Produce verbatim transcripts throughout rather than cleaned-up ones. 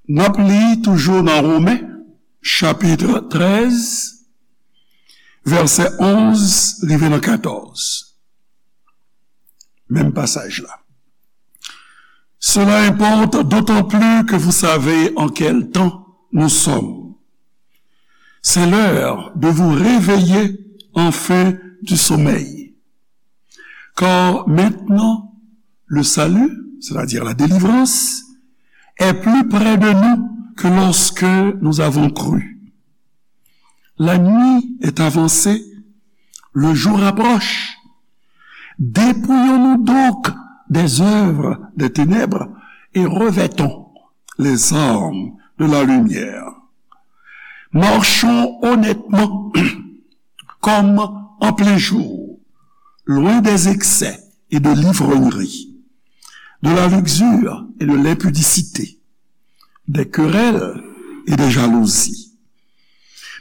N ap li toujou nan Women, chapit trèz, vèsè onz rive nan katòz. Menm pasaj la. Cela importe d'autant plus que vous savez en quel temps nous sommes. C'est l'heure de vous réveiller enfin du sommeil. Car maintenant, le salut, c'est-à-dire la délivrance, est plus près de nous que lorsque nous avons cru. La nuit est avancée, le jour approche. Dépouillons-nous donc des œuvres des ténèbres et revêtons les armes de la lumière. Marchons honnêtement comme en plein jour, loin des excès et de l'ivrognerie, de la luxure et de l'impudicité, des querelles et des jalousies.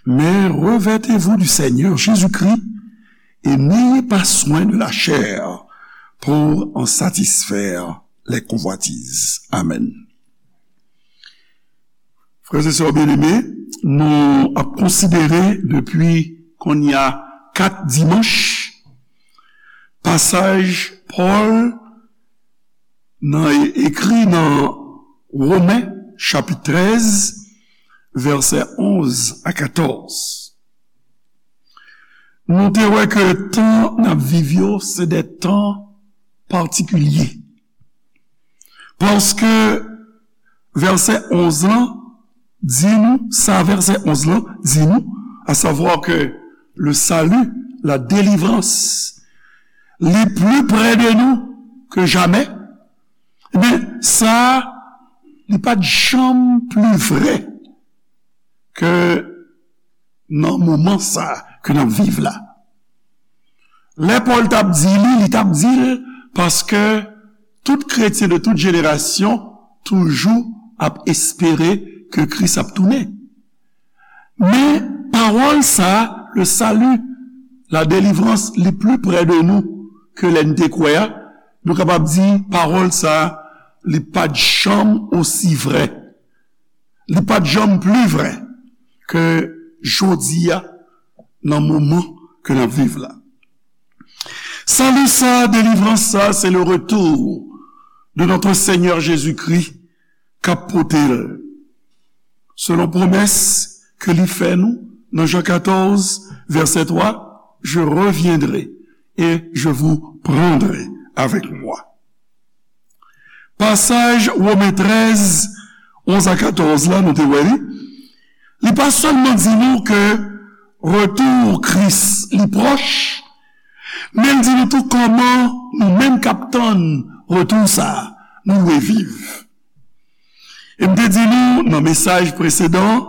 Mais revêtez-vous du Seigneur Jésus-Christ et n'ayez pas soin de la chair pour en satisfaire les convoitises. Amen. Frè e sè byeneme, nou ap konsidere depi kounye a kat dimanch pasaj Pòl nan ekri nan Women chapit trèz, vèsè onz a katòz. Nou te wè ke tan n ap viv yo se de tan patikilye. Paske vèsè onz lan di nou, sa vèsè onz lan di nou, à savoir que le salut, la délivrance, li plus près de nous que jamais, ebyen, sa, li pa t janm pli vrè ke nan moman sa ke n ap viv la. Lè Pòl t ap di li, li t ap di l paske tout kretyen de tout jenerasyon toujou ap espere ke Kris ap tounen. Men, pawòl sa a, le salut, la délivrance, li pli prè de nou ke lè n te kwè a, nou kapab di pawòl sa a, li pa t janm osi vrè. Li pa t janm pli vrè ke jodi a, nan moman ke n ap viv la. Sali sa, delivrans sa, se le retour de notre Seigneur Jésus-Christ k ap pote l. Selon pwomès ke li fè nou nan Jan katòz, vèsè twa, je reviendrai et je vous prendrai avec moi. Pasaj Women trèz, onz a katòz la, nou te wè li, li pa sèlman di nou ke retou Kris li pwòch, men l di nou tou kòman nou menm k ap tann retou sa a, nou dwe viv. E m te di nou nan mesaj presedan,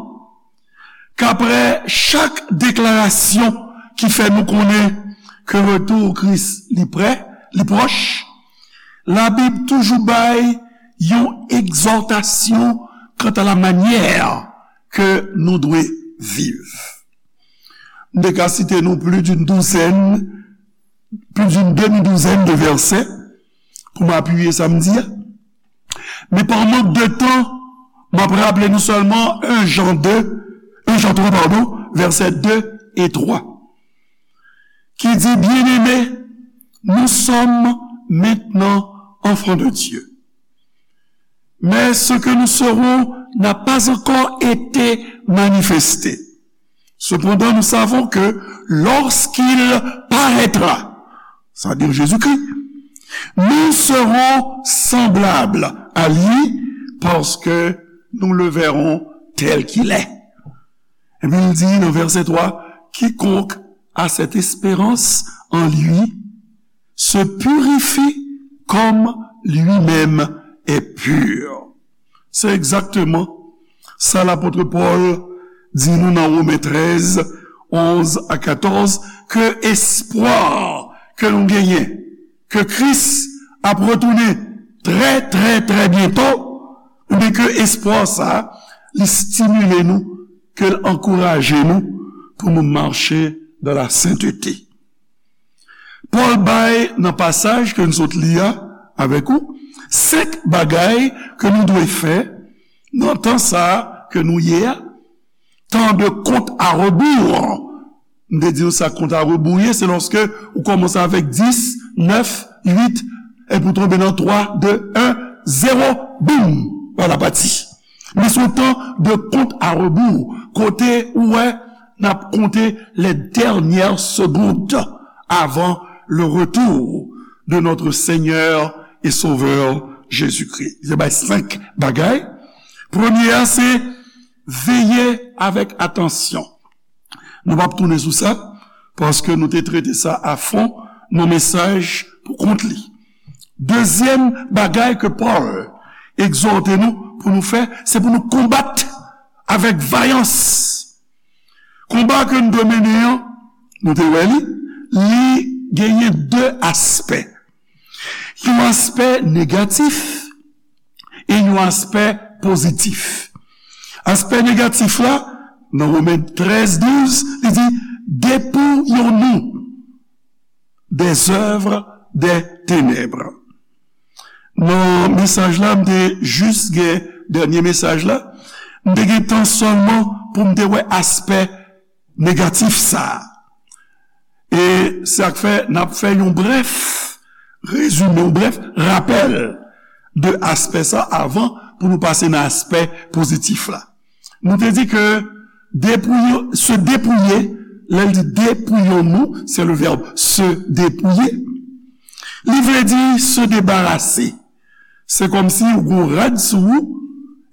k aprè chak deklarasyon ki fè nou konnen ke retou Kris li prè, li pwòch, Labib toujou bay yon egzòtasyon kanta la manyè ke nou dwe viv. M te ka site nou plis d'une douzaine, plus d'une demi-douzaine de versets pou m apiye sa m di a. Men pa mank de tan, m ap raple nou sèlman en Jan de, en Jan twa, padon, vèsè de e twa, ki di, Bien-aimés, nous sommes maintenant enfants de Dieu. Mais ce que nous serons n'a pas encore été manifesté. Cependant, nous savons que lorsqu'il paraîtra, c'est-à-dire Jésus-Christ, nous serons semblables à lui parce que nous le verrons tel qu'il est. Epi l di nan vèsè twa, Quiconque a cette espérance en lui se purifie comme lui-même est pur. Se egzakteman sa lapot Pòl di nou nan Women trèz, onz a katòz, ke espwa ke nou genyen, ke Kris ap retounen trè, trè, trè byento, ebyen ke espwa sa a, li stimile nou, ke l ankouraje nou pou nou mache dans la sainteté. Pòl bay nan pasaj ke n sot li a avèk ou, senk bagay ke nou dwe fè Nan tan sa a ke nou ye a, tan de kont a rebou. M te di nou sa kont a rebou ye, se lòske ou kòmanse avèk dis, nèf, uit, epi ou tonbe nan twa, de, en, zewo, boum, voilà pati. Men se yon tan de kont a rebou, kote ou wè n ap konte les dernières secondes avant le retour de notre Seigneur et Sauveur Jésus-Christ. Li te bay senk bagay. Premye a, se veye avèk atansyon. Nou p ap tounen sou sa, paske nou te trete sa a fon nan mesaj pou kont li. Dezyèm bagay ke Pòl egzòte nou pou nou fè, se pou nou konbat avèk vayans. Konba ke n dwe mennen an, nou te wè li, li genyen de aspè. Yon aspè negatif e yon aspè pozitif. Aspè negatif la, nan Women trèz douz, li di, dépouillons-nous des œuvres des ténèbres. Nan mesaj la, m te jis gen dènye mesaj la, m te gen tan sèlman pou m te wè aspè negatif sa a. E sa k fè n ap fè yon brèf rezime, yon brèf rapèl de aspè sa avan pou nou pase nan aspè pozitif la. Nou te di ke dépouiller, se dépouiller, lè l di dépouillons-nous, c'est le verbe se dépouiller. Li vle di se debarase. Se kòmsi ou gon rad sou ou,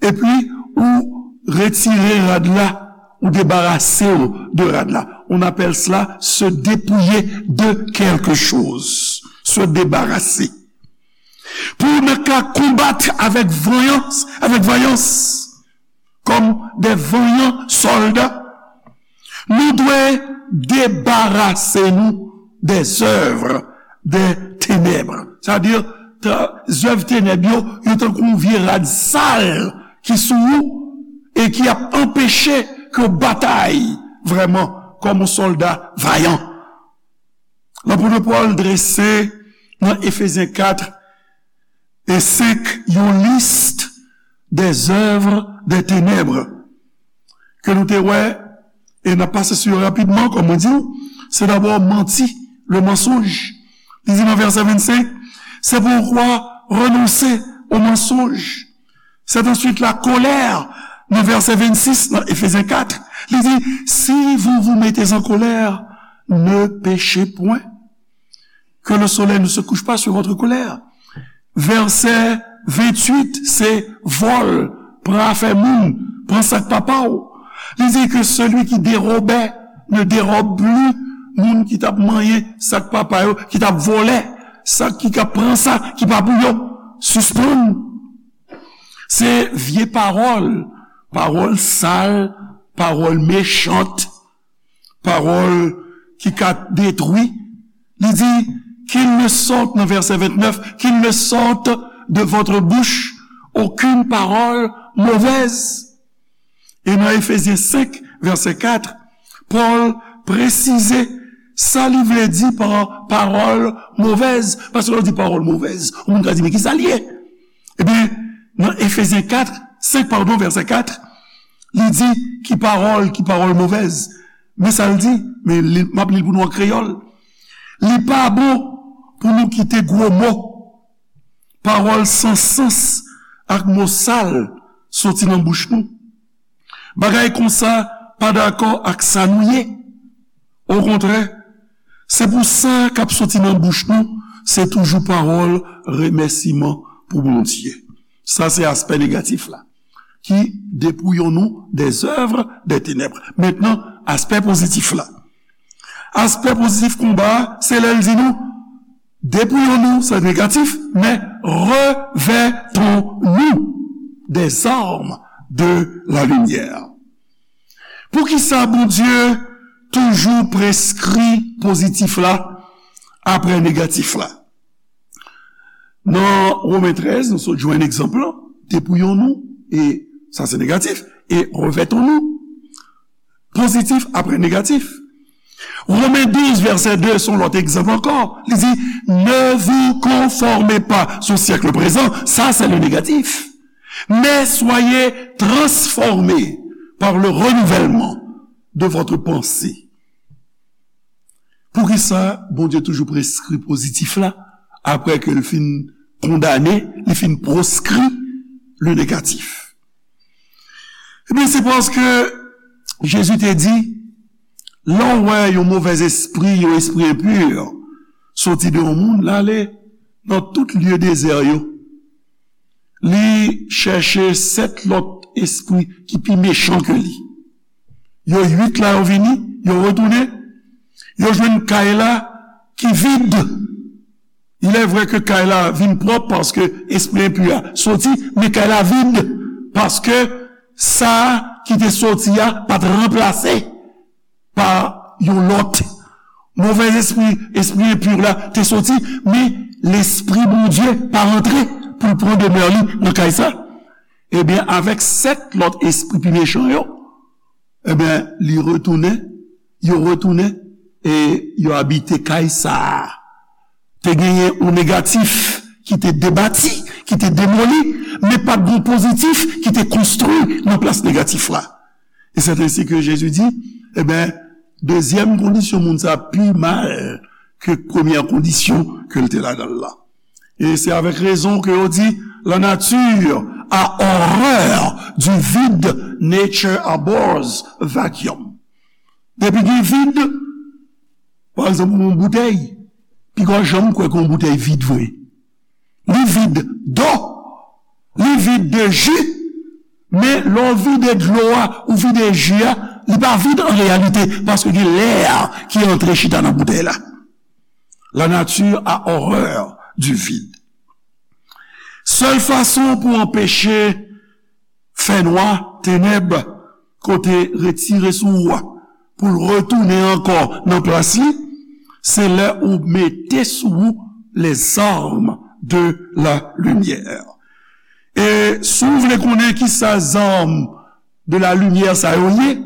epi ou retire rad la, ou debarase w de rad la. On appelle cela se dépouiller de quelque chose. Se debarase. Pou nou ka konbat avèk vayans, avèk vayans, kòm de vanyan sòlda, nou dwe debarase nou des œuvres des ténèbres. Sa di, zèv tenèb yo, yo tankou yon vye rad sal ki sou ou e ki ap anpeche ke w batay vrèman kòm yon sòlda vayan. Lapot Pòl drese nan Efezyen kat e senk yon lis des œuvres des ténèbres ke nou te wè, e n ap pase sou yo rapidman, kòm mwen di w, se dabò manti, le mensonge. Li di nan vèsè vennsenk, c'est pourquoi renoncez au mensonge. C'est ensuite la colère, nan vèsè vennsis, nan Efezyen kat, li di, si vous vous mettez en colère, ne péchez point. Que le soleil ne se couche pas sur votre colère. Vèsè venntuit, se vòl, pran afè moun, pran sa k pa pa w. Li di ke celui qui dérobait ne dérobe plus, moun ki t ap manyen sa k pa pa yo, ki t ap vòlè, sa ki ka pran sa ki pa pou yo, sispann. Se vye pawòl, pawòl sal, pawòl mechant, pawòl ki ka detwi. Li di, qu'il ne sorte, nan vèsè vennèf, qu'il ne sorte de votre bouche aucune parole mauvaise. E nan Efezyen senk, vèsè kat, Pòl presize sa li vle di pa pawòl movèz. Paske lè w di pawòl movèz, yon moun ka di, men ki sa l ye? Ebyen, nan Efezyen kat, senk, padon, vèsè kat, li di, ki pawòl, ki pawòl movèz. Men sa l di, men li, m ap li l pou nou an kreyòl. Li pa bon pou nou kite gwo mo, pawòl san sans ak mo sal soti nan bouch nou. Bagay konsa pa dakò ak sa nou ye. Okontrè, se pou sa k ap soti nan bouch nou, se toujou pawòl remèsiman pou Bondye. Sa se aspè negatif la, qui dépouillons-nous des œuvres des ténèbres. Mentnan, aspè pozitif la. Aspè pozitif konba a, se lè l di nou, dépouillons-nous, se negatif, men revêtons-nous des armes de la lumière. Poukisa Bondye toujou preskri pozitif la apre negatif la? Nan Women trèz, nou sot jwenn egzanp lan, dépouillons-nous, e sa se negatif, e revêtons-nous, pozitif apre negatif. Women douz, vèsè de, se yon lòt egzanp ankò. Li di, ne vous conformez pas au siècle présent. Sa se le negatif. Mais soyez transformés par le renouvellement de votre pensée. Poukisa Bondye toujou preskri pozitif la, apre ke l fin kondane, li fin proskri le negatif? Ebyen, se paske Jezi te di, lè w wè yon movèz espri, yon espri enpi, soti de yon moun, l ale nan tout lye dezè yo. Li chèche sèt lòt espri ki pi mechan ke li. Yo uit la, yo vini, yo retounen, yo jwenn kay la ki vid. Il est vrai ke kay la vin pwòp paske espri enpi a soti, men kay la vid paske sa ki te soti a pa t ranplase pa yon lòt. Movèz espri, espri enpi la te soti, men Lespri Bondye pa rantre pou l pran demè li nan kay sa. Ebyen, avèk sèt lòt espri pi mechan yo, ebyen, li retounen, yo retounen, e yo abite kay sa a. Te genyen yon negatif ki te debati, ki te demoli, men pa t gen yon pozitif ki te konstwi nan plas negatif la. E c'est ainsi que Jésus dit, ebyen, dezyèm kondisyon moun sa pi mal ke premyè kondisyon ke l te ladan l la. E se avèk rezon ke yo di, la nature a horreur du vide, nature abhors vacuum. Depi gen vid, pa egzanp, yon boutèy, piga w janm kwè ke yon boutèy vid vre. Li vid dlo, li vid de ji, men lè w vide dlo a, ou vide ji a, li pa vid an reyalite, paske gen lè ki antre chita nan boutèy la. La nature a horreur du vide. Sèl fason pou anpeche fènwa, tenèb, kote retire sou ou a, pou l retounen ankò nan plas li, se lè ou mete sou ou les armes de la lumière. E si w vle konnen ki sa zam de la limyè sa yo ye,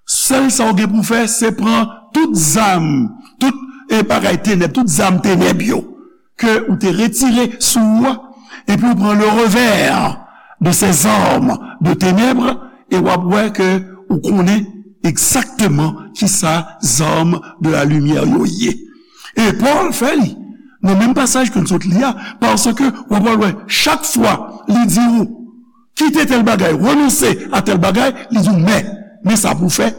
sèl sa w gen pou fè, se pran tout zam, tout, e, bagay tenèb, tout zam tenèb yo, ke ou te retire sou ou a, epi ou pran le revers de ces armes de ténèbres, e w ap wè ke ou konnen egzakteman ki sa zam de la limyè yo ye. E Pòl fè li nan menm pasaj ke n sot li a, paske w ap wè chak fwa li di ou, kite tèl bagay, renonse a tèl bagay, li di w, men, men sa pou w fè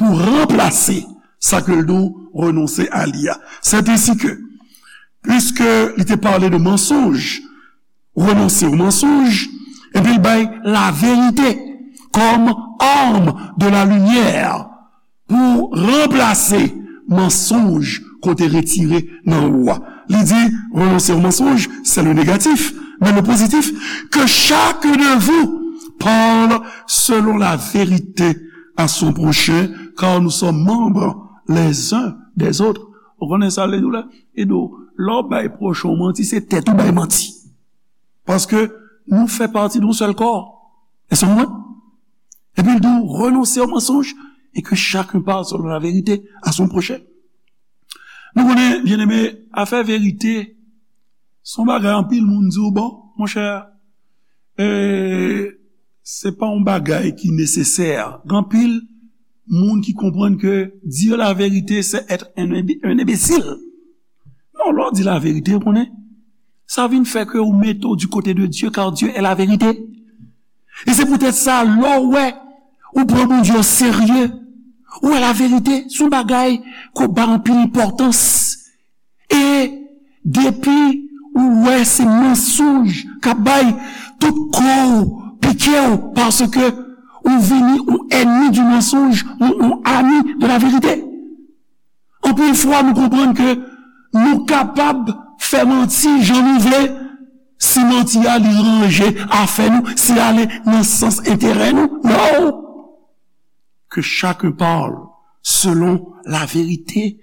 pou ranplase sa ke l di w renonse a li a. C'est ainsi que, puisque li te pale de mensonge, renonse au mensonge, epi l bay laverite kòm arme de la lumière pou ranplase mansonj kote retire nan ou a. Li di, renoncer au mensonge, c'est le négatif, mais le positif, que chacun de vous parle selon la vérité à son prochain, car nous sommes membres les uns des autres. Ou konnen sa l di w la? Li di w, lè w bay pwochen w manti, se tèt ou bay manti. Paske nou fè pati de yon sèl kò. Èske w konprann? Epi l di w, renoncer au mensonge et que chacun parle selon la vérité à son prochain. Nou konnen, byeneme, afè verite, se yon bagay anpil moun di w, bon, monchè, e, se pa yon bagay ki nesesè. Gen anpil moun ki konprann ke dire la vérité, c'est être un imbi-, un imbécile. Non, lè w di laverite, ou konnen, sa vin fè ke ou mete w du côté de Dieu, car Dieu est la vérité. E se poutèt sa, lè w wè ou pran Bondye o serye, ou wè laverite se yon bagay ke w ba anpil enpòtans. E depi ou wè se mansonj k ap bay, tout kò w pike w, paske ou vini yon ènmi du mensonge, yon, yon ami de la vérité. Anpil fwa, nou konprann ke nou kapab fè manti jan nou vle, si manti a li ranje afè nou, si l ale nan sans enterè nou. Non! Que chacun parle selon la vérité.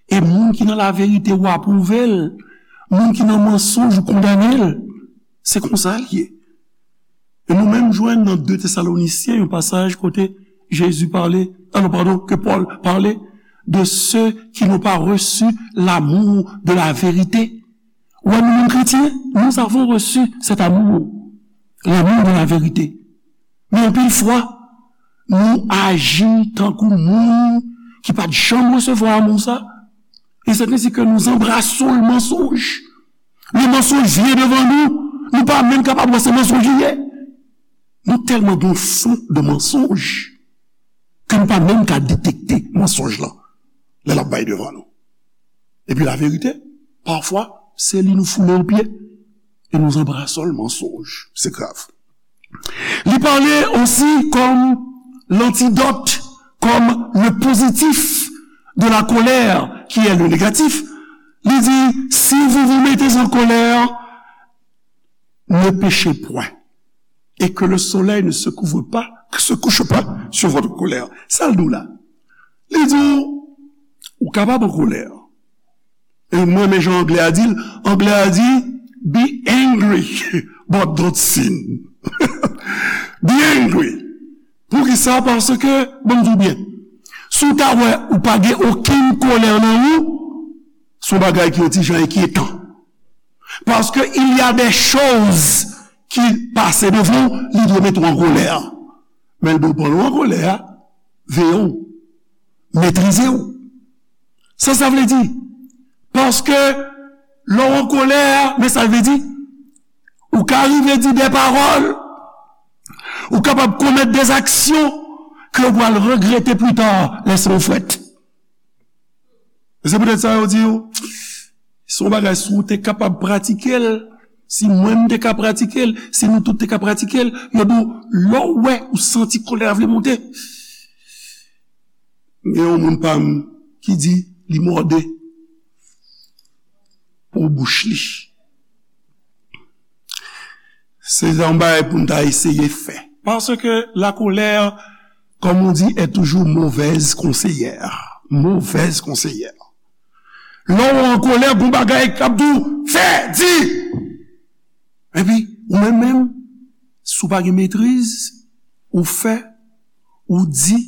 E moun ki nan laverite, ou apwouve l. Moun ki nan mansonj, ou kondane l. Se konsa l ye. E nou menm jwenn nan de Tesalonisyen yon pasaj kote Jezi pale, a non, padon, ke Pòl pale de ceux qui n'ont pas reçu l'amour de la vérité. Ou wè, nou menm kretyen, nous avons reçu cet amour. l'amour de la vérité. Men anpil fwa, nou aji tankou moun ki pa t janm resevwa amou sa. E c'est ainsi que nous embrassons le mensonge. Le mensonge vient devant nous. Nou pa menm kapab wè se mensonj li ye. Nou tèlman gen yon fon de mensonge ke nou pa menm ka detekte mensonj lan lè l ap bay devan nou. Epi laverite, pafwa, se li nou foule o pye. Et nous embrassons le mensonge. C'est grave. Li pale osi kòm l'antidote, comme le positif de la colère, qui est le négatif. Li di, si vous vous mettez en colère, ne péchez point, et que le soleil ne se couvre pas, se couche pas sur votre colère. Sa l di w la? Li di w, ou kapab an kolè. E mwen, men jan anglè a di l, anglè a di, be angry, but don't sin. Be angry. Poukisa? Paske, bon, m di w byen, si w ta wè ou pa gen okenn kolè nan ou, se yon bagay ki yon ti jan enkyetan. Paske il y a des choses ki pase devan w, li dwe mete w an kolè. Men l dwe pran w an kolè, veye w, metrize w. Sa sa vle di? Paske lè w an kolè, men sa l vle di, ou ka rive di de pawòl, ou kapab komèt de aksyon ke w pral regrete pita lè san w frèt. E se poutèt sa yo di w, se yon bagay, si w te kapab pratike l, si mwen m te ka pratike l, si nou tout te ka pratike l, yo di w, lè w wè ou santi kolè a vle monte, gen yon moun pa m ki di li mòde pou bouch li. Se yon bagay pou n ta eseye fè. Paske la colère, comme on dit, est toujours mauvaise conseillère. Mauvaise conseillère. Lè w an kolè, gon bagay k ap di w, fè, di. Epi, ou menm menm, si w pa gen metriz, ou fè, ou di,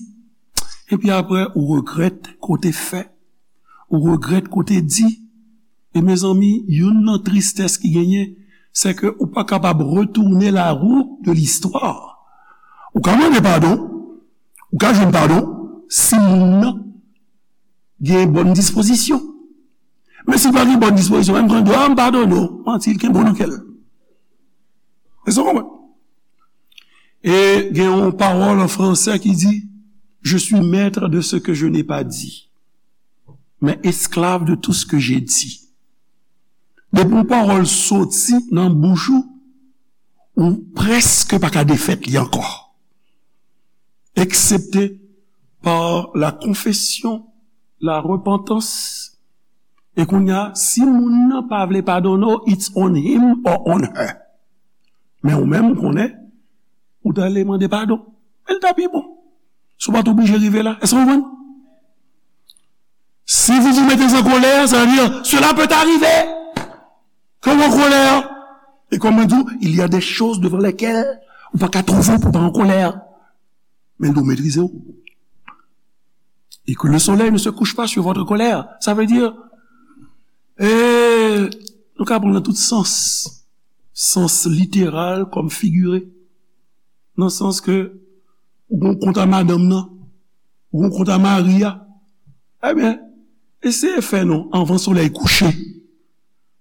epi apre, ou regrèt kote fè, ou regrèt kote di. E mezanmi, youn nan tristès ki genyen, se ke ou pa kapab retourner la roue de l'histoire. Ou ka mande padon, ou ka jwenn padon, si moun nan gen bòn dispozisyon. Men si l pa gen bòn dispozisyon, menm jan l di, a, m padone w, manti, l kenbe w nan kè l. Èske w konprann? E gen yon pawòl an fransè ki di, je suis maître de ce que je n'ai pas dit, mais esclave de tout ce que j'ai dit. Depi yon pawòl soti nan bouch ou, ou prèske pa ka defèt li ankò. Eksepte par la confession, la repentance. E kounye a, si moun nan pa vle padone w, it's on him or on her. Men ou menm, ou konnen, ou ta ale mande padon. Men l ta pi bon. Si w pa t oblije rive la. Èske w konprann? Si vous vous mettez en colère, ça veut dire, cela peut arriver. Ke w an kolè. E kòm mwen di w, il y a des choses devant lesquelles ou pa ka twouve w pou w pa an kolè. Men l dwe metrize w. Et que le soleil ne se couche pas sur votre colère. Sa vle di, e, nou ka pran nan tout sans. Sans literal kòm figire. Nan sans ke ou gon kont a madanm nan, ou gon kont a mari a. Ebyen, eseye fè non anvan solèy kouche.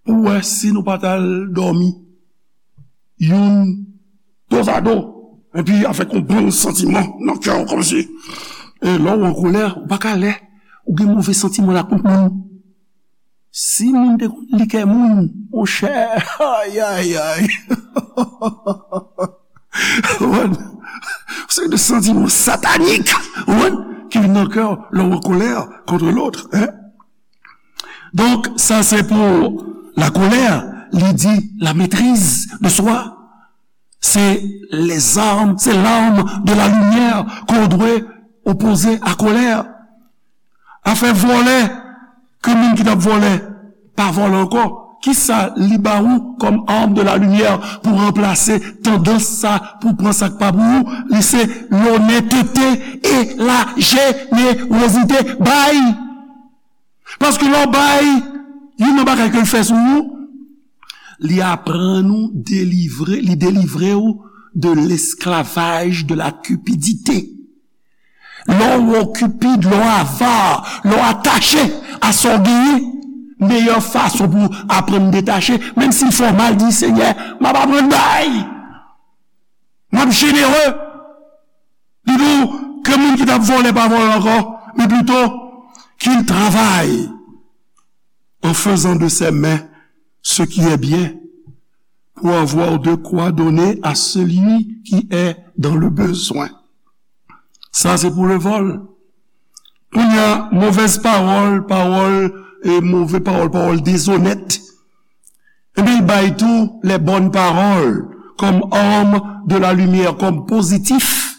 Pou wè si nou pa t al dòmi youn dozado, epi avèk yon bon santiman nan kè w kòmsi. E lè w an kolè, ou pa ka lè ou gen move santiman la kont moun. Si moun te konn li kè moun, monchè, ay, ay, ay. Ou konprann? Se de santiman satanik, ou konprann, ki vin nan kè w lè w an kolè kont lòt, hein? Donk, sa se pou la colère, li di la maîtrise de soi. Se les armes, c'est l'arme de la lumière qu'on doit opposer à colère. Afè vòlè, ke moun ki t ap vòlè pa vòlè ankò, kisa li ba ou kòm arme de la lumière pou ranplase tandans sa, pou pran sa k pa pou ou? Li se lonnètete e la jenerozite. Bay! Paske lè w bay, youn nan bagay ke l fè sou ou, li aprann ou delivre, li delivre w de l'esclavage de la cupidité. Lè w okipid, lè w ava, lè w atache a sa w genyen, meyè fason pou w aprann detache, menm si l fè w mal, di, Senyè, m ap aprann bay. M ap jenere. Li di w ke moun ki t ap vòlè pa vòlè ankò, men plito qu'il travaille en faisant de ses mains ce qui est bien, pour avoir de quoi donner à celui qui est dans le besoin. Sa se pou le vol. Kounye a, movèz pawòl, pawòl, e move pawòl, pawòl dezonèt. Ebyen, l bay tou les bonnes paroles comme arme de la lumière, kòm pozitif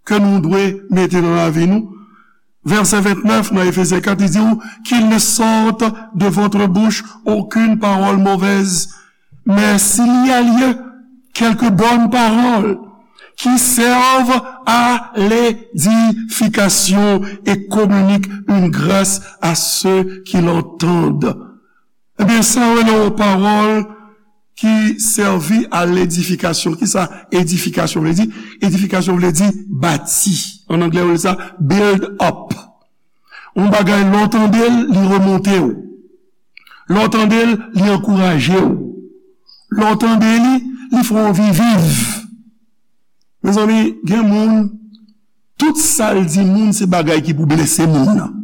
ke nou dwe mete nan lavi nou. Vèsè vennèf nan Efezyen kat, li di w, qu'il ne sorte de votre bouche aucune parole mauvaise, mais s'il y a lieu, quelques bonnes paroles qui servent à l'édification et communiquent une grâce à ceux qui l'entendent. Ebyen, sa yo rele yon pawòl ki sèvi a ledifikasyon. Kisa edifikasyon vle di? Edifikasyon vle di bati. An anglè, yo rele sa build up. Yon bagay, lè w tande l, li remonte w. Lè w tande l, li ankouraje w. Lè w tande li, li fè w anvi viv. Mezanmi, gen moun, tout sa l di moun, se bagay ki pou blese moun nan.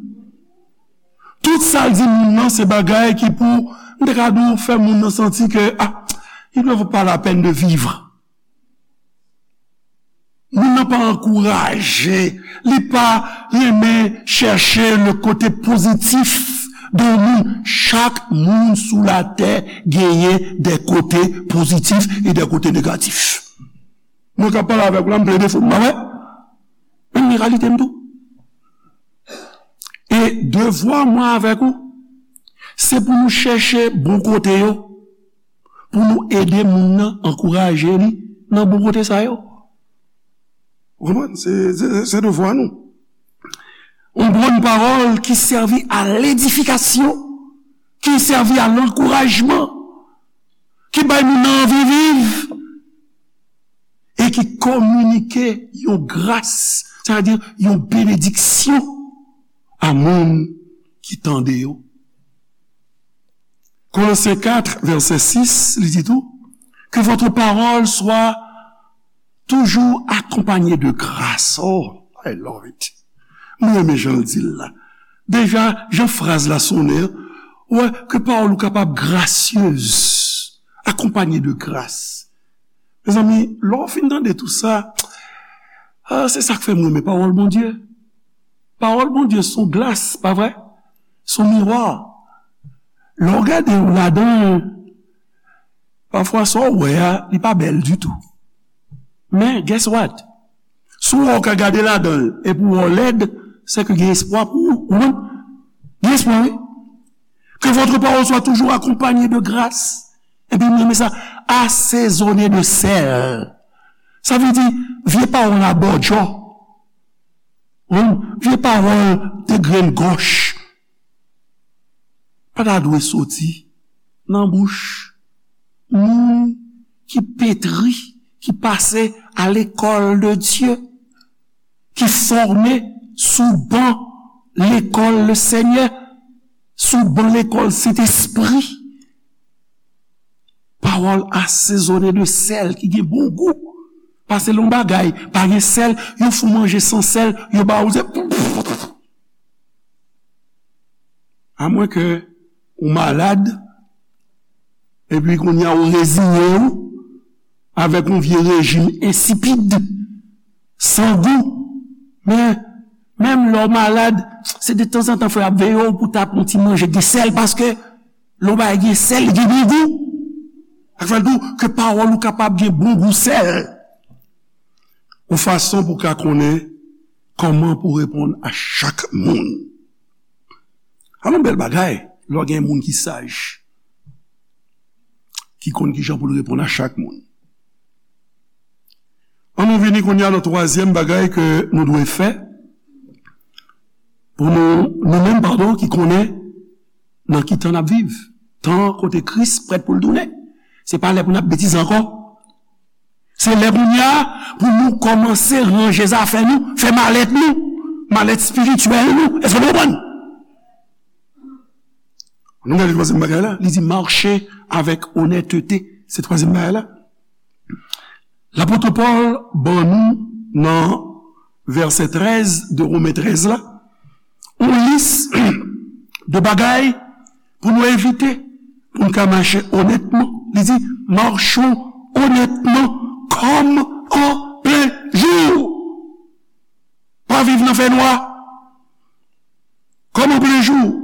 Tout sa l di moun nan, se bagay ki pou, m te ka di w, fè moun nan santi ke, ah, il ne vaut pas la peine de vivre. Moun nan pa ankouraje, li pa renmen chèche le kote pozitif de moun. Chak moun sou latè genyen de kote pozitif e de kote negatif. Mwen k ap pale avèk ou la, m plede fo m, pa vre? Men realite m tou. E devwa mwen avèk ou, se pou nou chèche bon kote yo, pou nou ede moun nan, ankouraje li nan bon kote sa yo. Ou konprann? Se, se, se devwa nou. Yon bon pawòl ki sèvi a ledifikasyon, ki sèvi a lankourajman, ki bay moun nan anvi viv, e ki kominike yon gras, sètadi yon benediksyon a moun ki tande yo. Kolosyen kat, vèsè sis, li di tou, que votre parole soit toujours accompagnée de grâce. Oh, I love it. Mwen renmen jan l di l la. Deja, jan fraz la sonnen an, ou wè ke pawòl ou kapab grasyez, akonpanye de gras. Mezanmi, lè w fin tande tou sa, ah, se sa k fè m renmen pawòl Bondye. Pawòl Bondye se yon glas, pa vre? Se yon miwa. Lè w gade w ladan l, pafwa sa w wè a, li pa bèl ditou. Men, guess what? Si w wè w ka gade ladan l epi w wè w lèd, se ke gen espwa pou ou, ou konprann? Gen espwa, wi. Que votre parole soit toujours accompagnée de grâce. Epi m renmen sa, asezone de sèl. Sa vle di, vye pawòl abòdjò. Wi, vye pawòl de grenn gòch pa ta dwe soti nan bouch moun ki petri, ki pase à l'école de Dieu, ki fòme sou ban lekòl le Senyè, sou ban lekòl Sentespri. Pawòl asezone de sèl ki gen bon gou. Pase lè yon bagay pa gen sèl, yo fè w manje san sèl, yo ba ou se. Amwen ke ou malad, epi kounye a ou reziye w avèk yon vye rejim ensipid, san gou. Men, menm lè w malad, se de tanzantan fò y ap veye w pou ta pran yon ti manje gen sèl, paske lè yon bagay gen sèl, li gen bon gou. Sa k fè l di w ke pawòl ou kapab gen bon gou sèl. Yon fason pou w ka konnen kòman pou w reponn a chak moun. Alon bèl bagay, lè w gen moun ki saj, ki konn kijan pou l reponn a chak moun. Ann nou vini kounye a nan twazyèm bagay ke nou dwe fè pou nou, nou menm, padon, ki konnen nan ki tan n ap viv. Tan kote Kris prèt pou l tounen. Se pa lè pou n ap betize ankò. Se lè kounye a pou nou kòmanse ranje zafè nou, fè malèt nou, malèt espirityèl nou. Èske nou konprann? Nou gade twazyèm bagay la, li di mache avèk onètete. Se twazyèm bagay la. Lapot Pòl ban nou nan vèsè trèz de Women trèz la, yon lis de bagay pou nou evite, pou n ka mache onètman. Li di, machons honnêtement comme en plein jour. Pa viv nan fènwa. Comme en plein jour.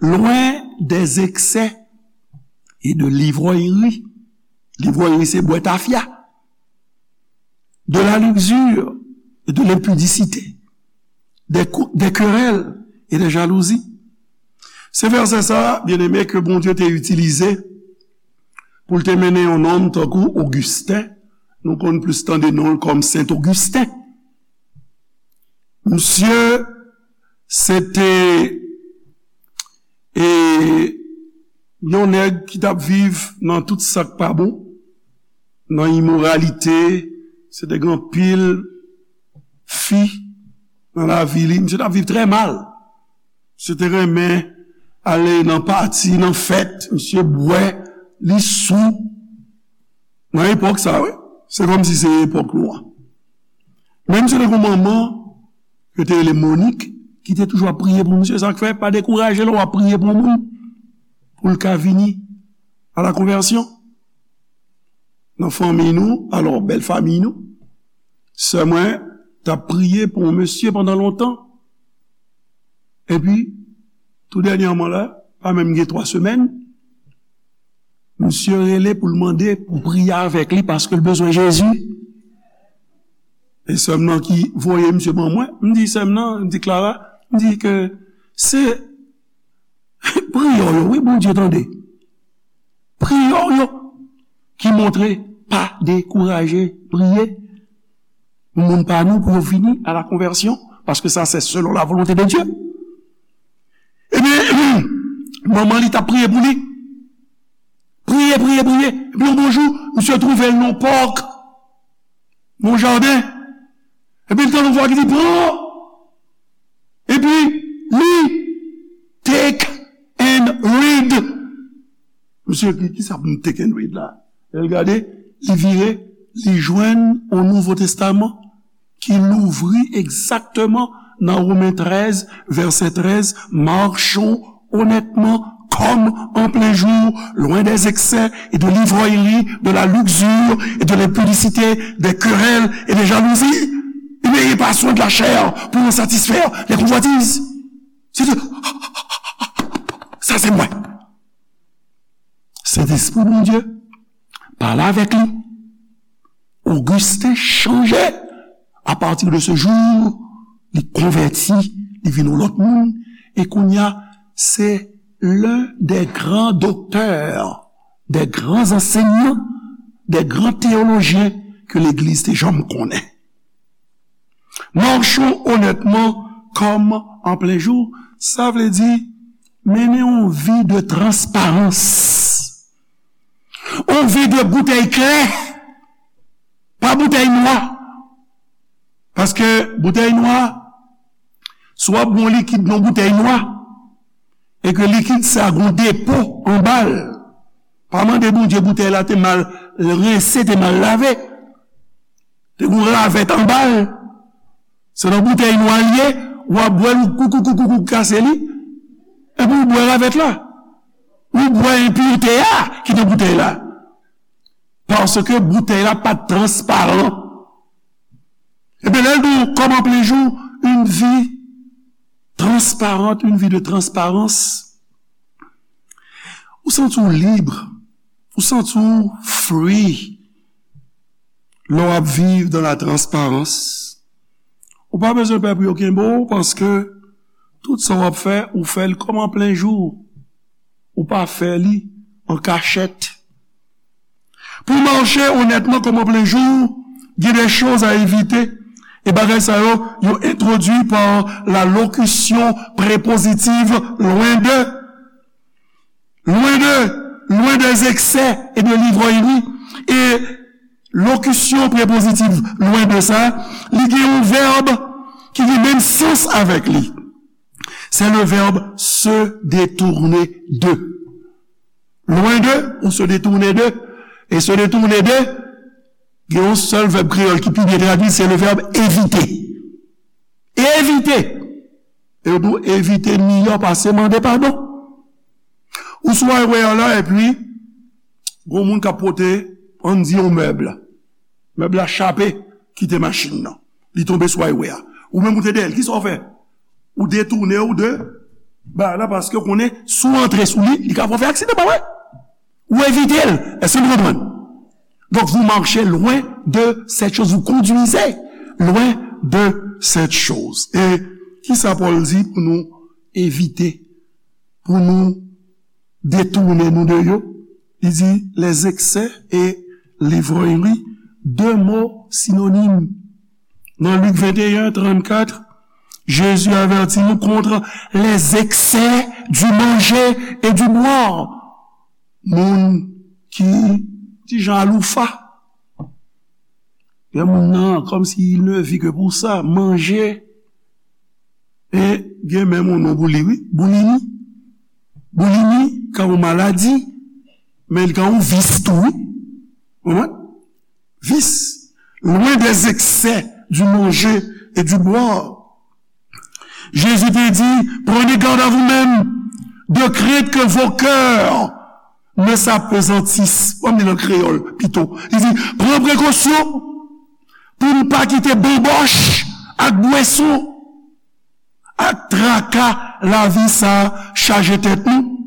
Loin des excès et de l'ivrognerie. L'ivrognerie, se bwè tafya. De la luxure et de l'impudicité. Des, cou- des querelles et des jalousies. Se vèsè sa, byeneme, ke Bondye te itilize pou l te mennen yon nonm tankou Ogisten. Nou konn plis tande non l kòm Sen Ogisten. Misye, se te, e, yon nèg ki t ap viv nan tout sa k pa bon, nan imoralite, se te gen anpil fi nan lavi li. Misye t ap viv trè mal. Misye te renmen ale nan pati, nan fèt, misye bwè, li sou. Nan epòk sa, wi. Se kòmsi se epòk nou an. Men misye te gen yon manman, yo te rele Monik, ki te toujou ap priye pou misye. Sa k fè, pa dekouraje lè w ap priye pou yon moun, pou l ka vini a la konvèsyon. Nan fanmi nou, alò, bèl fanmi nou, sè mwen t ap priye pou yon mesye pandan lontan. Epi, tou dènyèman la, pa menm gen twa semèn, misye rele pou l mande pou priye avèk li paske l bezwen Jezi. E sè m nan ki voye misye ban mwen, m di sè m nan, m di Clara, m di ke se priyè w yo, wi, Bondye tande. Priyè w yo ki montre pa dekouraje priye pou moun pa nou pou yo vini a la konvèsyon, paske sa se selon la volonte de Dye. Ebyen, manman li t ap priye pou li. Priye, priye, priye. Epi yon bon jou, misye twouve l nan pòk, nan jaden. Epi l tande yon vwa ki di, pran. Epi li, take and read. Misye di, kisa pou m take and read la? Lè l gade, li vire, li jwenn yon Nouvo Testaman ki louvri egzakteman nan Women trèz, vèsè trèz, marchons honnêtement comme en plein jour, loin des excès et de l'ivrognerie, de la luxure et de l'impudicité, des querelles et des jalousies. Et n'ayez pas soin de la chair pour en satisfaire les convoitises. Se di, sa se mwen. Sentespri Bondye pale avèk li. Ogisten chanje. A pati de se jou, li konvèti, li vin yon lòt moun. E kounye a, se l'un des grands docteurs, des grands enseignants, des grands théologiens ke legliz te janm konnen. Marchons honnêtement comme en plein jour, sa vle di mennen yon vi de transparans. Yon vi de boutèy klè, pa boutèy nwa. Paske boutèy nwa, si w ap gen yon likid nan boutèy nwa, e ke likid sa gen yon depo anba l, pa mande Bondye boutèy la te mal rense, te mal lave, te gen yon ravèt anba l. Se nan boutèy nwa l ye, w ap bwè l, ou koukoukoukoukou kase li, epi w bwè ravèt la. Ou bwè enpirite a ki nan boutèy la. Paske boutèy la pa t transparan. Ebyen, lè l di w, comme en plein jour, une vie transparente, une vie de transparence, ou santi w lib, ou santi w free lè w ap viv dans la transparence. Ou pa bezwen pè pou yo kenbe w, paske tout sa w ap fè, ou fè l comme en plein jour. Ou pa fè li an kachèt. Pour marcher honnêtement comme en plein jour, il y a des choses à éviter. E bagay sa yo, yo entwodui par la locution prépositive loin de. Loin de, loin des excès et de l'ivrognerie. E lokisyon prepozitif loin de sa, li gen yon vèb ki gen menm sans avèk li. Se le verbe se détourner de. Loin de, ou se détourner de. E se détourner de, gen yon sèl vèb kreyòl ki pi byen tradui, se le verbe éviter. Evite. E yo di w evite miyò pase mande padon. Ou sou highway an la, epi, gon moun k ap pote, ann di, yon mèb. Mèb la chape, kite machin nan. Li tonbe sou highway a. Ou menm ou te dèyè l, kisa w fè? Ou detounen w de bagay la, paske w konnen si w antre sou li, li ka fè w fè aksidan, pa vre? Ou evite l. Èske nou konprann? Donc, vous marchez loin de cette chose, vous conduisez loin de cette chose. E kisa Pòl di pou nou evite, pou nou detounen nou de yo? Li di, les excès et l'ivrognerie, deux mots synonymes. Dans Luc vingt et un trente-quatre, Jésus avertit nous contre les excès du manger et du boire. Moun ki ti jan aloufa. Gen moun nan, comme s'il ne vit que pour ça, manje. E gen menm yon non pou li, wi. Boulimi. Boulimi ka yon maladi, men li ka yon vis tou, wi. Konprann? Vis. Loin des excès du manger et du boire. Jésus te di, prenez garde à vous-même, de crainte que vos cœurs ne s'appesantissent. Bon, m li nan kreyòl, pito. Li di, pran prekosyon pou n pa kite banbòch ak bwèson ak traka lavi sa chaje tèt nou,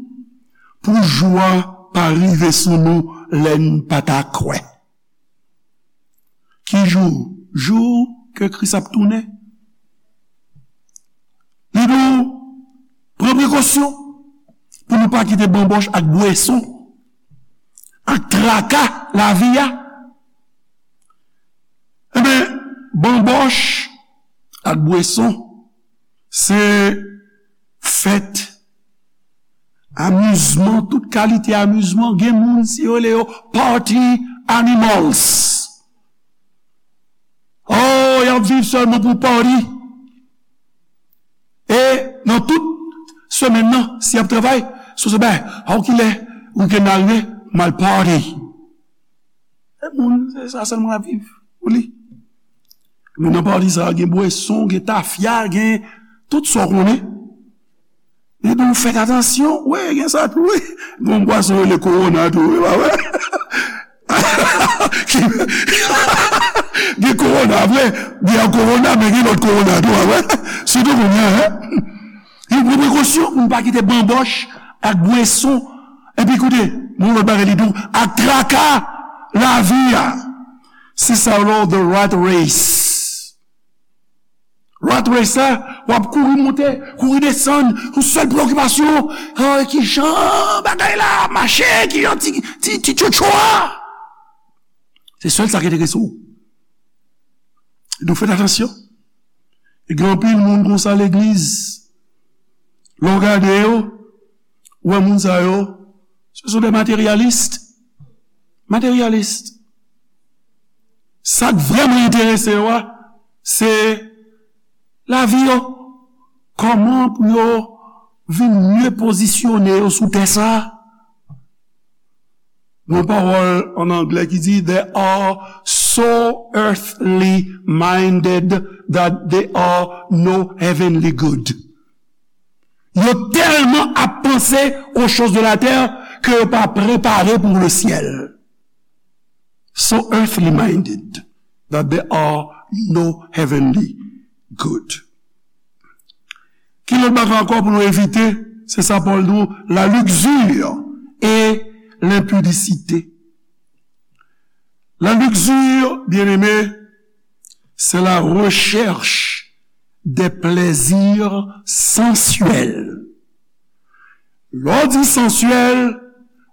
pou jou a pa rive sou nou lè n pa ta kwè. Ki jou? Jou ke Kris ap tounen. Li di w, pran prekosyon pou nou pa kite banbòch ak bwèson ak traka lavi a. Enben, banbòch ak bwèson, se fèt, amizman, tout kalite amizman. Gen moun, si yo rele yo party animals. Oh, y ap viv sèlman pou party. E nan tout semèn nan, si y ap travay, si w se bay, a w kilè wikenn nan rive, m al party. E moun, se sa sèlman l ap viv pou li. Men nan party sa, gen bwèson, gen tafya, gen tout sa w konnen. Li di w fèt atansyon. Wi, gen sa tou, wi. Gen yon bwèson yo rele kowona tou, wi, pa vre? Gen kowona, vre. Gen kowona, men gen lòt kowona tou, pa vre? Sitou kounye a, en. Li pran prekosyon pou n pa kite banbòch ak bwèson. Epi koute, yon lòt bagay li di w, ak traka lavi a. Se sa yo rele the rat race. Rat race la, w ap kouri monte, kouri desann, yon sèl preokipasyon, ah, ki jan bagay la mache, ki jan ti, ti, ti tchotcho a. Se sèl sa ki enterese w. Donk, fèt atansyon. E gen anpil moun konsa legliz. Lè w gade yo, ou wè moun sa yo, ce sont des matérialistes. Matérialistes. Sa k vrèman enterese yo a, se lavi yo. Kòman pou yo vin mye pozisyone yo sou tè sa a? Gon pawòl an anglè ki di, they are so earthly minded that they are no heavenly good. Yo tèlman ap panse aux choses de la terre ke yo pa prepare pou le ciel. So earthly minded that they are no heavenly good. Ki lòt bagay ankò pou nou evite? Se sa Pòl di w, la luxure et l'impudicité. La luxure, bien-aimé, c'est la recherche des plaisirs sensuels. Lè w di sensuel,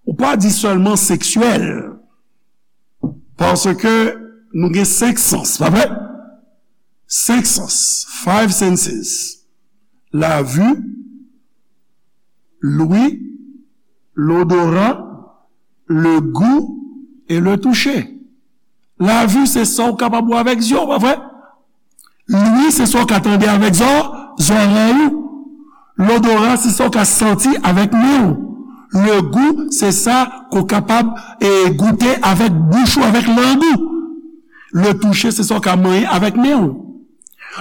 ou pa di sèlman seksyèl. Paske nou gen senk sans, pa vre? Senk sans, five senses. La vue, l'ouïe, l'odorat, le goût et le toucher. Lavi se sa w kapab wè avèk zye w, pa vre? Lwi se sa w ka tande avèk zò, zòrèy ou. Lodora se sa w ka santi avèk men w. Le gou se sa ke w kapab, e, goute avèk bouch ou, avèk lang ou. Le touche se sa w ka manyen avèk men w.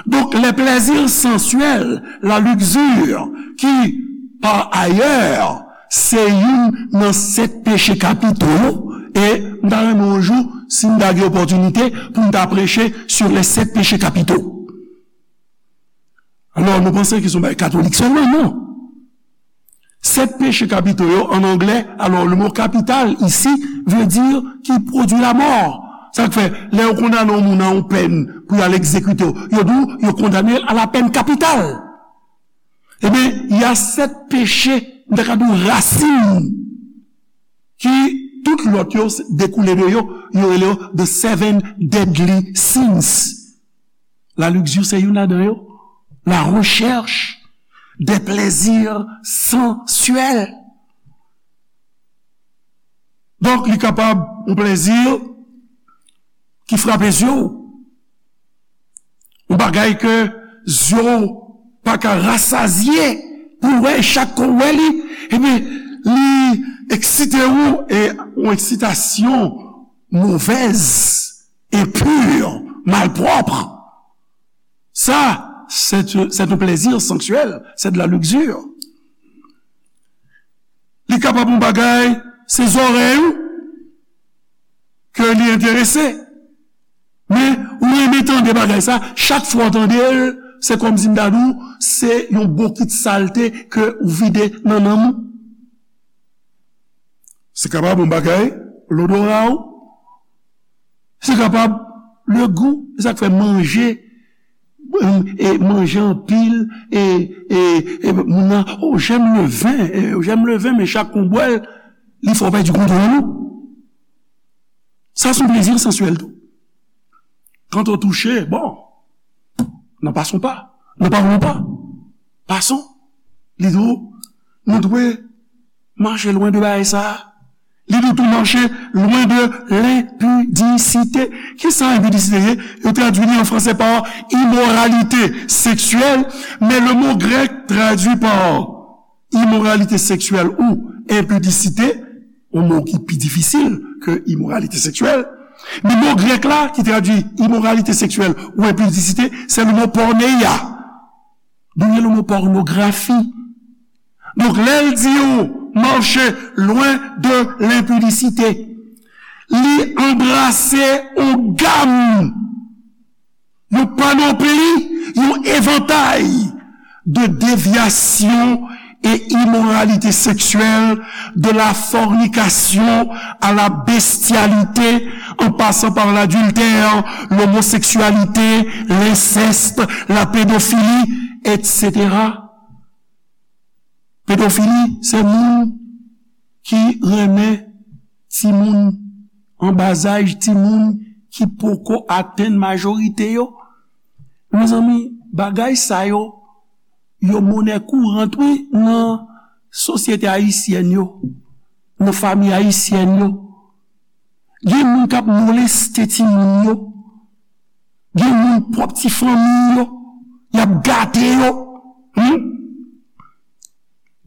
Donk, les plaisirs sensuels, la luxure, ki, par ailleurs, se youn nan sèt peche kapito yo, e m ta renmen yon jou, si m ta gen opòtinite, pou m ta preche sur les sept péchés capitaux. Alò, nou panse ke se yon bagay katolik sèlman, non. Sèt peche kapito yo, an anglè, alò, le mot capital ici veut dire qui produit la mort. Sa k fè, lè yo kondane yon moun a yon pèn pou y al egzekite w, yo di w, yo kondane l a la peine capitale. Ebyen, y a sèt peche, m ta ka di w rasin, ki tout lòt yo dekoule de yo, yo rele yo the seven deadly sins. La luxure se youn ladan yo. La recherche des plaisirs sensuels. Donk, li kapab yon plezi ki frape zye w. Yon bagay ke zye w pa ka rasazye pou w wè, e chak ke w wè li, ebyen, li eksite w, e yon eksitasyon movèz, enpi, malpwòp. Ça, c'est, c'est un plaisir sensuel, c'est de la luxure. Li kapab yon bagay, se zòrèy ou ke li enterese. Men, ou renmen tande bagay sa, chak fwa w tande l, se kòmsi m ta di w, se yon bokit salte ke ou vide nan nanm ou. Se kapab yon bagay, lodora w. Se kapab le gou, e sa k fè manje, e manje anpil, e, e, e moun nan, oh, j'aime le vin, e, j'aime le vin, men chak kon bwè l, li fè w pèdi kontwòl ou. Sa se yon plezi sensuel tou. Quand on touche, bon, nan pason pa, nan pawon pa, pason, li di w, nou dwe mache lwen de bagay sa a. Li di tou mache lwen de lenpidisite. Kisa enpidisite ye? Yo tradui li an franse pa imoralite seksyèl, men le mo grèk tradui pa imoralite seksyèl ou enpidisite, yon mo ki pi difisil ke imoralite seksyèl. Men mo grèk la ki tradui imoralite seksyèl ou enpidisite, se le mo porneia. D'où vient le mot pornographie? Donk, lè l di w mache lwen de lenpidisite, li anbrase yon gam, yon panopli, yon evantay de déviation et immoralité sexuelle, de la fornication à la bestialité, en passant par l'adultère, l'homosexualité, l'inceste, la pédophilie, et cetera. Pedofili, se moun ki renmen timoun an bazaj, timoun ki poko atenn majorite yo. Mezanmi, bagay sa yo, yo monè kourant, wi, nan sosyete ayisyèn yo, nan fanmi ayisyèn yo. Gen moun k ap moleste timoun yo. Gen moun pwòp ti fanmi yo, y ap gate yo. Hmm?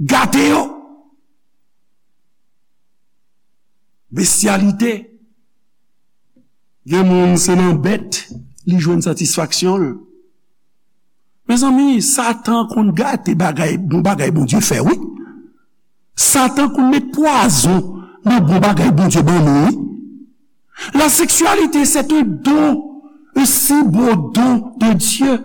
Gate yo. Bestyalite. Gen moun se nan bèt li jwenn satisfaksyon l. Mezanmi, Satan konn gate bagay, bon bagay Bondye fè, wi. Satan konn met pwazon nan bon bagay Bondye ban nou, wi. La sexualité, c'est un don, un si beau don de Dieu.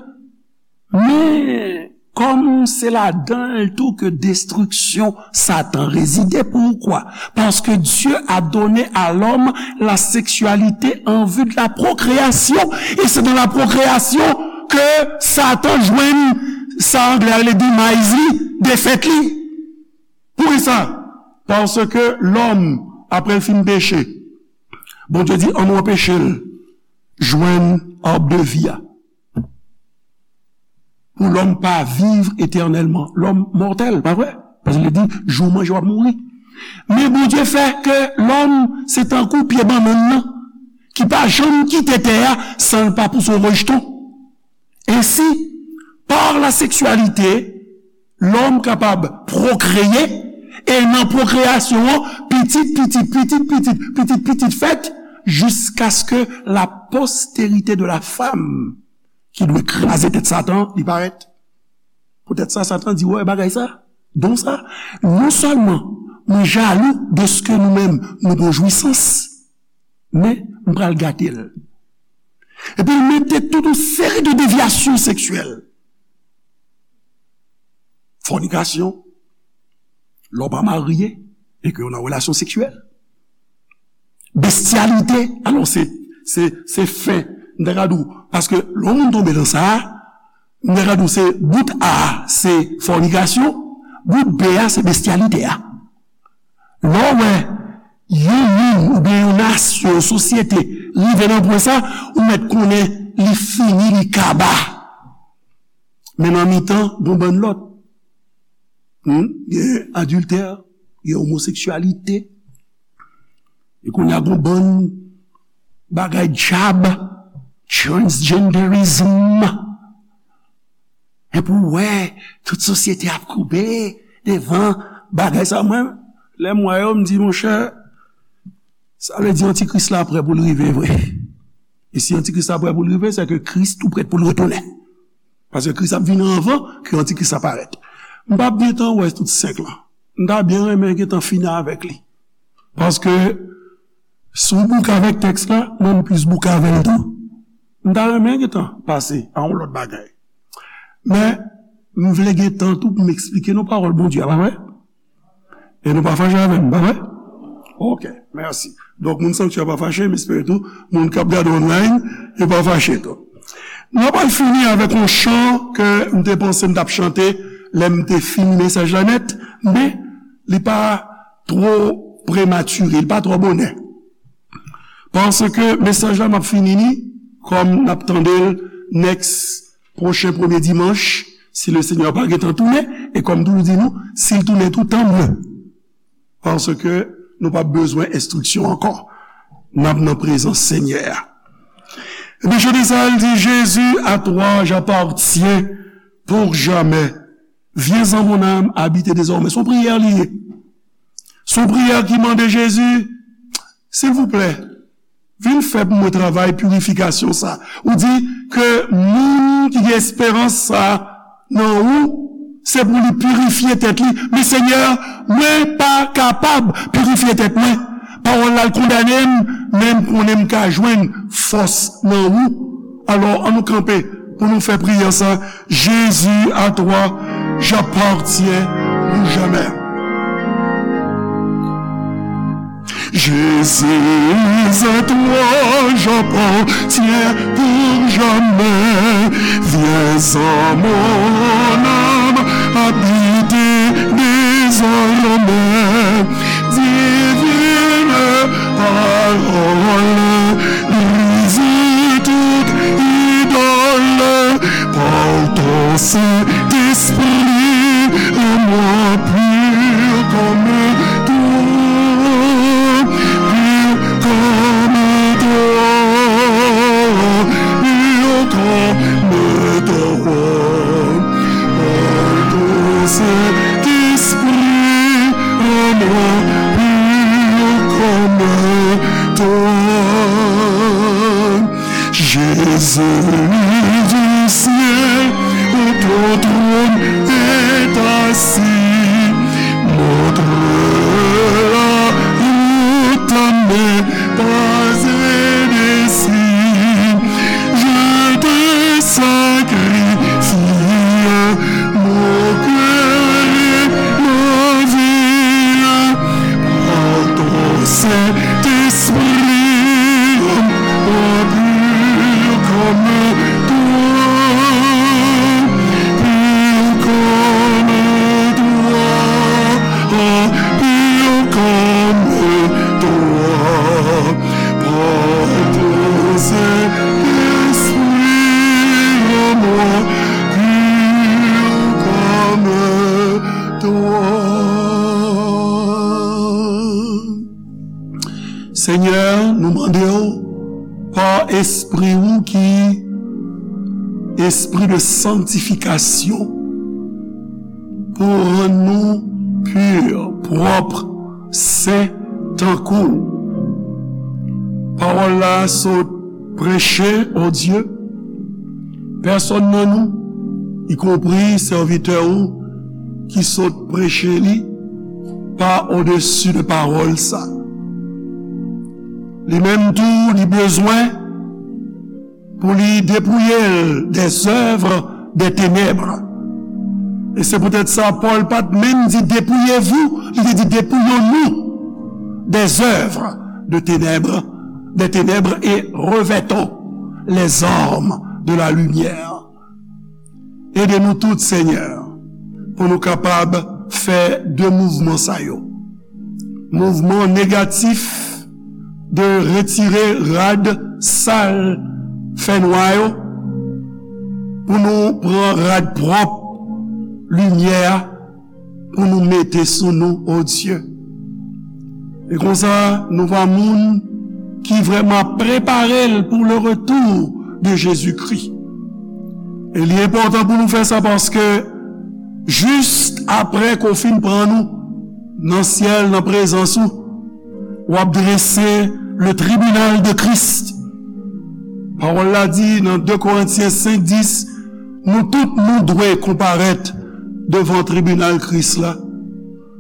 Men, kòm se ladan l tou ke destriksyon Satan rezide. Poukwa? Parce que Dieu a donné à l'homme la sexualité en vue de la procréation. Et c'est dans la procréation que Satan jwenn sa anglè a rele demise li, defèt li. Poukisa? Paske lòm, apre l fin peche, Bondye di, an nou anpeche l jwenn ab de vi a. Pou lòm pa viv etènèlman. Lòm mòtèl, pa vre? Paske li di, jou w manje, w ap mouri. Men Bondye fè ke lòm se tankou pye bannann nan, ki pa janm kite tè a san l pa pouse yon rejeton. Ensi, par la sexualité, lòm kapab pwokreye, e nan pwokreyasyon an, pitit, pitit, pitit, pitit, pitit, pitit fèt, jiskaske la postérité de la femme, ki dwe kraze tèt Satan, li parèt. Poutèt sa, Satan di, wè, bagay sa, don sa, non sèlman mwen jalou dèske nou menm, nou gon jwisans, men m pral gate l. Epi l mete tout yon seri de devyasyon seksyèl. Fònikasyon, lè w pa marye e ke w nan relasyon seksyèl. Bestyalite, alò se, se, se fen, m ta ka di w, paske lè yon moun tonbe nan sa a, m ta ka di w se bout A a, se fònikasyon, bout B a, se bestyalite a. Lè w wè yon moun oubyen yon nasyon, yon sosyete rive nan pwen sa, ou mèt konnen li fini, li kaba. Men nan mitan, gon bann lòt. Hmm? Gen adiltè, gen omoseksyalite. E kounye a gon bann bagay djab, transgenderism. Epi w wè, tout sosyete ap koube devan bagay sa. Mwen, lè m wè yo, m di, monchè, sa vle di antikris la prè pou l rive vre. E si antikris la prè pou l rive, se ke Kris tou prèt pou l retounen. Paske Kris ap vini anvan ke antikris la parèt. M p ap gentan wè tout senk lan. M ta byen renmen gentan fini avèk li. Paske si w bouke avèk tèks la, mwen m plis bouke avè l tou. M ta renmen gentan pase a yon lòt bagay. Men, m vle gen tan tou pou m eksplike nou pawòl Bondye a, pa vre? E nou pa fache avè m, pa vre? Ok, mèsi. Donk, moun Sanktyè pa fache, m espere tou, moun k ap gade online, yo pa fache tou. Nou pral fini avèk yon chan ke m te panse m t ap chante lè m te fini mesaj la nèt, men li pa twò prematire, li pa twò bonè. Paske mesaj la, m ap fini li, kòm n ap tande l next pwochen premye dimanch, si le Senyè pa gentan tounen, e kòm m toujou di nou, si l tounen tou, tanmye. Paske nou p ap bezwen enstriksyon ankò. N ap nan prezans Senyè a. Epi chante sa, l di, Jésus, à toi j'appartiens pour jamais. Viens en mon âme habiter désormais. Se yon priyè li ye. Se yon priyè ki mande Jezi, silvouplè, vin fè pou mwen travay pirifikasyon sa. Ou di ke moun ki gen esperans sa nan ou, se pou li pirifye tèt li. Men Senyè, mwen pa kapab pirifye tèt mwen. Pawòl la, l kondane m, men m konnen m ka jwenn fòs nan ou. Alò, ann nou kanpe pou nou fè priyè sa. Jésus, à toi j'appartiens pour jamais. Jésus, à toi j'appartiens pour jamais. Viens en mon âme habiter désormais. Divine parole, brise toute idole. Par ton Saint-Esprit, rends-moi pur comme toi, pur comme toi, pur comme toi. Par ton Saint-Esprit, rends-moi pur comme toi. Jésus du ciel, où ton trône est assis, montre la route à mes pas indécis. Je te sacrifie mon cœur et ma vie. Par ton Saint-Esprit, rends-moi pur comme toi, pur comme toi, pur comme toi. Par ton Saint-Esprit, rends-moi pur comme toi. Senyè, nou mande w Espri ou ki espri de sanktifikasyon pou rann nou pi, pwòp, sen, tankou w. Pawòl la sot preche, o Dye, pèsonn nan nou, ikonpri sèvitè ou ki sot preche li, pa odesi de pawòl sa. Li menm tou, li bezwen pou li depouye l des œuvres des ténèbres. E se poutèt sa, Pòl pa t menm di dépouillez-vous, li te di dépouillons-nous des œuvres de ténèbres, des ténèbres et revêtons les armes de la lumière. Ede nou tout, Senyè, pou nou kapab fè de mouvman sa yo. Mouvman negatif de retire rad sal, fènwa yo, pou nou pran rad pwòp, limyè a, pou nou mete sou nou, o Dye. E konsa, nou va moun ki vrèman prepare l pou le retour de Jésus-Christ. E li enpòtan pou nou fè sa paske jis apre ke w fin pran nou nan syèl, nan prezans ou, w ap drese le tribunal de Christ. Pawòl la di nan de Korentyen senk dis, nou tout nou dwe konparèt devan tribinal Kris la,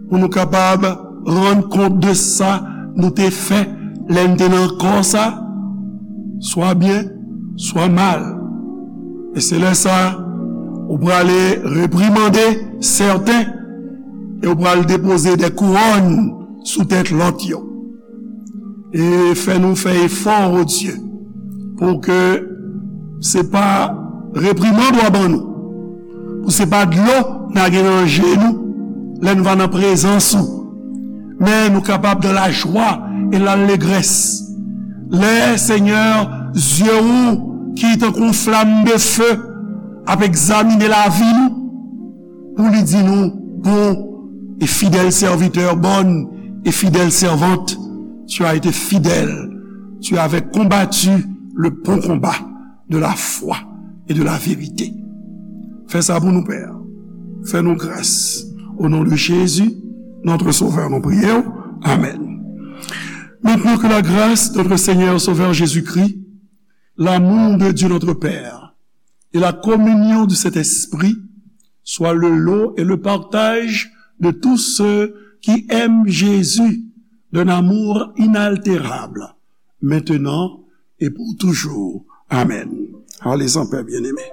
pou nou kapab rann kont de sa nou te fè lè n te nan kò sa, swa byen, swa mal. E se lè sa, ou prale reprimande sèten, e ou pral depoze de kouwòn sou tèt lòt yo. E fè nou fè efò, o Dye, pou ke se pa reprimand w a ban nou, pou se pa dlo n a gen nan je nou lè n va nan prezans ou, men nou kapab dans la joie et l'allégresse. Lè, Senyè, zye ou ki tankou yon flam de fe ap egzamine lavi nou, pou li di nou, bon et fidèle serviteur, bonne et fidèle servante, tu as été fidèle, tu avais combattu le bon combat de la foi et de la vérité. Fè sa pou nou, Pè. Fè nou gras. Au nom de Jésus, notre Sauveur, nou priye w. Amen. Maintenant, que la grâce de notre Seigneur Sauveur Jésus-Christ, l'amour de Dieu notre Père et la communion du Saint-Esprit soient le lot et le partage de tous ceux qui aiment Jésus d'un amour inaltérable, maintenant et pour toujours. Amen. Allez en paix, bien-aimés.